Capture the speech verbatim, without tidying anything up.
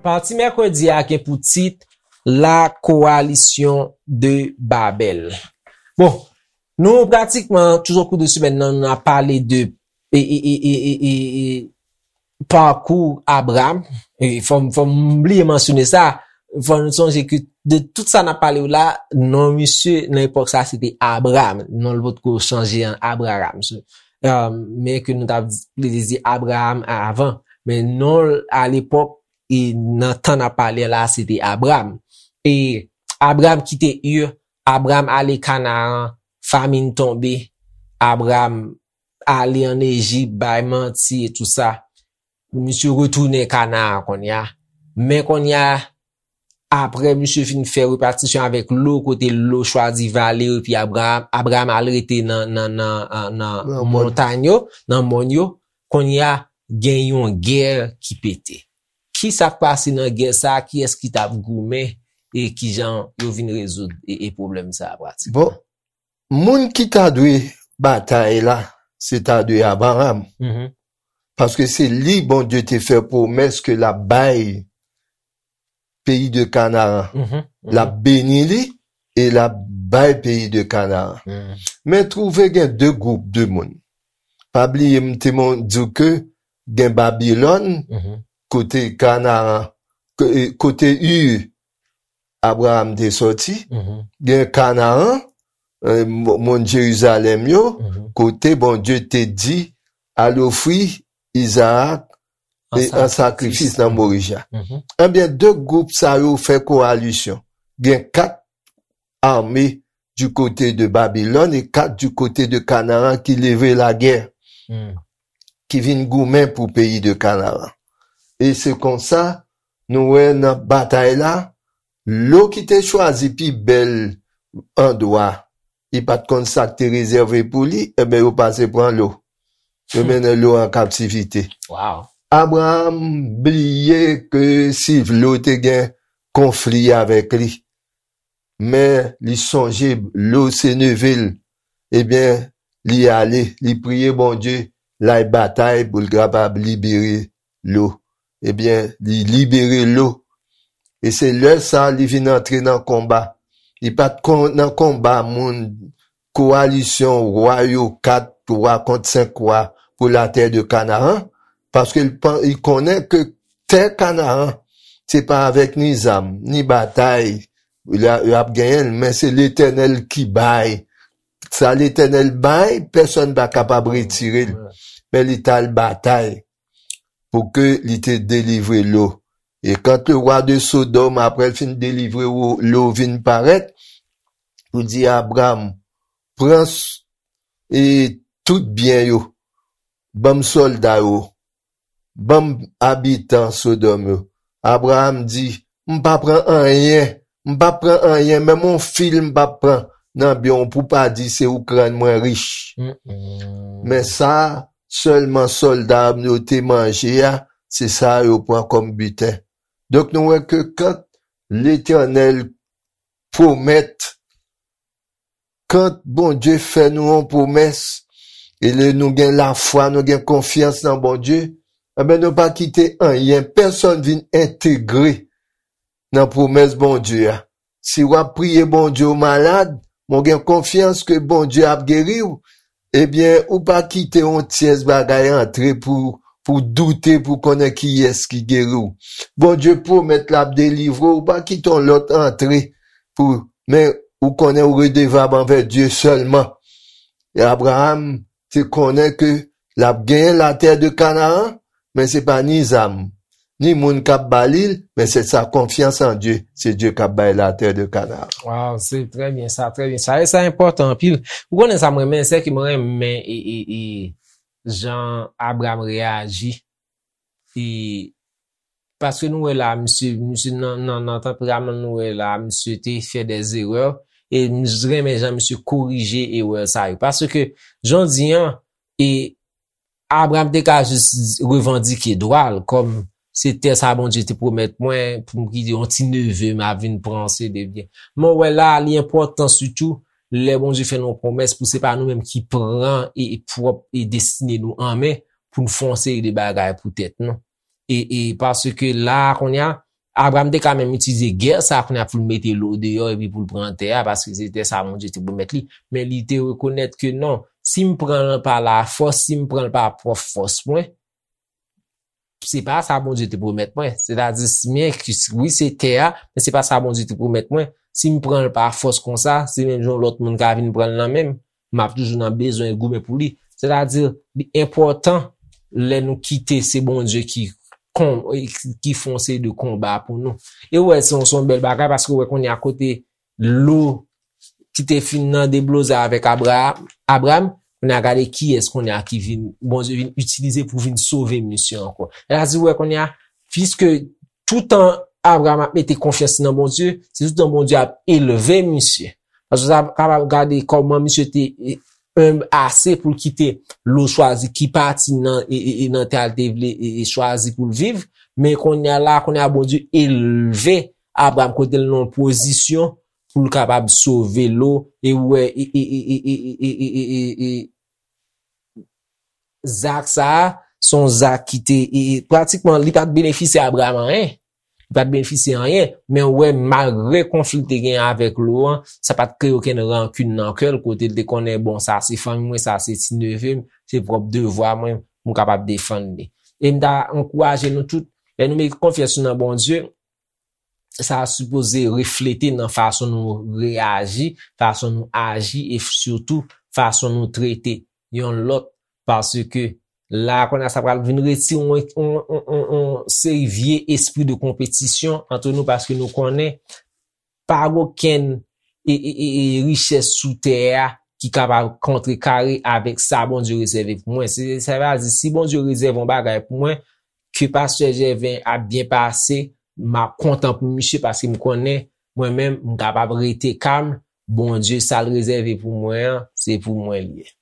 Pati mèkredi a gen pou tit La Coalition de Babel. Bon, nou pratikman tout au cours de semèn nan, nou ap pale de e, e, e, e, e, e, e, pakou Abraram. E fò m, fò m bliye mansyone sa. Fò nou sonje ke de tout sa n ap pale yo la, non misye nan epòk sa se te Abraram. Non l potko chanje an Abraram. So, um, men ke nou t ap di, li di Abraram avan. Men non l alepòk e nan tan n ap pale la, se te Abraram. E Abraram kite Ur, Abraram ale Kanaran, famin tonbe, Abraram ale ann Ejip, bay manti e tou sa. Misye retounen Kanaran kounye a. Men kounye a, apre misye fin fè repatisyon avèk Lo, kote Lo chwazi vale yo, epi Abraram, Abraram al rete nan, nan, nan, nan, nan Nan mòn. Montany yo, nan mòn yo, kounye a, gen yon gè ki pete. Ki sa k pase nan gè sa a? Kiyès ki t ap goumen? E kijan yo vin rezoud e, e pwoblèm sa a pratikman? Bon, moun ki ta dwe batay la, se ta dwe Abraram. Mhm. Paske se li Bondye te fè pwomès ke l ap bay peyi de Kanaran. Mhm, mhm. L ap beni li e l ap bay peyi de Kanaran. Mhm. Men twouve gen de gwoup de moun. Pa bliye m te mon-, di w ke gen Babilòn, mhm, kote Kanaran, ko-, e, kote Ur, Abraram te sòti, mhm, gen Kanaran, e, mo-, mòn Jerizalèm yo, mhm, kote Bondye te di, al ofri Izarak e an sakrifis nan Morija. Mhm. Ebyen, de gwoup sa yo fè kowalisyon. Gen kat ame du kote de Babilòn e kat du kote de Kanaran ki leve lagè, hmm, ki vin goumen pou peyi de Kanaran. E se konsa, nou wè nan batay la, Lo ki te chwazi pi bèl andwa, li pa t konn sa k te rezève pou li, ebyen, yo pase pran Lo. Yo, hmm, mennen Lo an kaptivite. Wow. Abraram bliye ke si Lo te gen konfli avèk li, men li sonje Lo se neve l. Ebyen, li ale, li priye Bondye, l al batay pou l kapab libere Lo. Ebyen, li libere Lo. E se lè sa a li vin antre nan konba. Li pa t kon-, nan konba moun, kowalisyon wa yo, kat wa kont senk wa pou latè de Kanaran, paske li pan-, li konnen ke tè Kanaran, se pa avèk ni zam, ni batay, y a, y ap genyen l, men se Letènèl ki bay. Sa Letènèl bay, pèsonn pa kapab retire l. Men li t al batay pou ke li te delivre Lo. E quand le roi de Sodome, apre l fin delivre Lo, Lo vin parèt, pou di Abram, pran s-, e tout byen yo, ban m sòlda yo, ban m abitan Sodòm yo. Abraram di, m pa pran anyen, m pa pran anyen, menm yon fil m pa pran nan byen w pou pa di se ou k rann mwen rich. Mm, mm. Men sa sèlman sòlda m yo te manje a, se sa yo pran kòm biten. Donk, nou wè ke kan Letènèl pwomèt, kan Bondye fè nou yon pwomès, e lè nou gen lafwa, nou gen konfyans nan Bondye, enben, nou pa kite anyen, pèsonn vin entegre nan pwomès Bondye a. Si w ap priye Bondye, w malad, men w gen konfyans ke Bondye ap geri w, ebyen, ou pa kite yon tyès bagay antre pou, pou doute, pou konnen kiyès ki geri w. Bondye pwomèt l ap delivre w, ou pa kite yon lòt antre pou, men ou konnen ou redevab anvè Dye sèlman. E Abraram te konnen ke l ap genyen latè de Kanaran, men se pa ni zam, ni moun k ap ba li l, men se sa, konfyans an Dye, se Dye k ap bay latè de Kanaran. Waw, se trè byen sa, trè byen sa. E sa enpòtan anpil. Ou konnen sa mwen renmen, se ke mwen renmen e, e, e jan Abraram reyaji. E paske nou wè la, misye, misye nan, nan, nan tanperaman nou wè la, misye te fè dè erè. E m renmen jan misye korije erè sa yo. Paske, jan w di an, e Abraram te ka jis revandike dwa l, kòm se tè sa Bondye te pwomèt mwen, pou m kite yon ti neve m ap vin pran, se de byen. Men w wè la, li enpòtan sitou, lè Bondye fè nou yon pwomès, pou se pa nou menm ki pran e, e pwòp e destine nou an men, pou n fè yon seri de bagay pou tèt nou. E, e paske la, kounye a, Abraram te ka menm itilize gè sa kounye a pou l mete lo deyò epi pou l pran tè a, paske se tè sa Bondye te pwomèt li. Men li te rekonèt ke non, si m pran l pa lafòs, si m pran l pa pwòp fòs mwen, se pa sa Bondye te pwomèt mwen. Sètadi, men, wi, se tè a, men se pa sa Bondye te pwomèt mwen. Si m pran l pa fòs konsa, se menm jan lòt moun ka vin pran l nan men m. M ap toujou nan bezwen goumen pou li. Sètadi, li enpòtan lè nou kite se Bondye ki kon, ki fè yon seri de konba pou nou. E w wè, se yon, se yon bèl bagay, paske w wè kounye a kote lo ki te fin nan debloze avèk Abra-, Abraram, kounye a gade kiyès kounye a ki vin, Bondye vin itilize pou vin sove misye ankò. Sètadi, w wè kounye a, piske toutan Abraram ap mete konfyans nan Bondye, se toutan Bondye ap elve misye. Paske sa kapab gade kòman misye te, e, enb ase pou l kite lo chwazi ki pati nan, e, e, e nan tè a l te vle, e, e chwazi pou l viv. Men kounye a la, kounye a Bondye elve Abraram kote l nan yon pozisyon pou l kapab sove lo, e w wè, e, e, e, e, e, e, e, e, e, e, zak sa a, se yon zak ki te, e, e, pratikman, li pa t benefisye Abraram anyen. Li pa t benefisye anyen, men w wè, malgre konfli l te gen avèk lo an, sa pa t kreye okenn rankin nan kè l, kote l te konnen, bon, sa se fanmi mwen, sa se ti neve m, se pwòp devwa mwen, m kapab defann li. E m ta ankouraje nou tout, lè nou mete konfyans nou nan Bondye, sa sipoze reflete nan fason nou reyaji, fason nou aji e sitou fason nou trete yon lòt, paske la kounye a sa pral vin retire yon, yon, yon, yon, yon seri vye espri de konpetisyon ant nou, paske nou konnen pa gen okenn e, e, e, e richès sou tè a ki kapab kontrekare avèk sa Bondye rezève pou mwen. Se, sa vle di, si Bondye rezève yon bagay pou mwen, ke pastè Jèven ap byen pase, m ap kontan pou misye paske m konnen mwen menm m kapab rete kalm. Bondye, sa l rezève pou mwen an, se pou mwen l ye.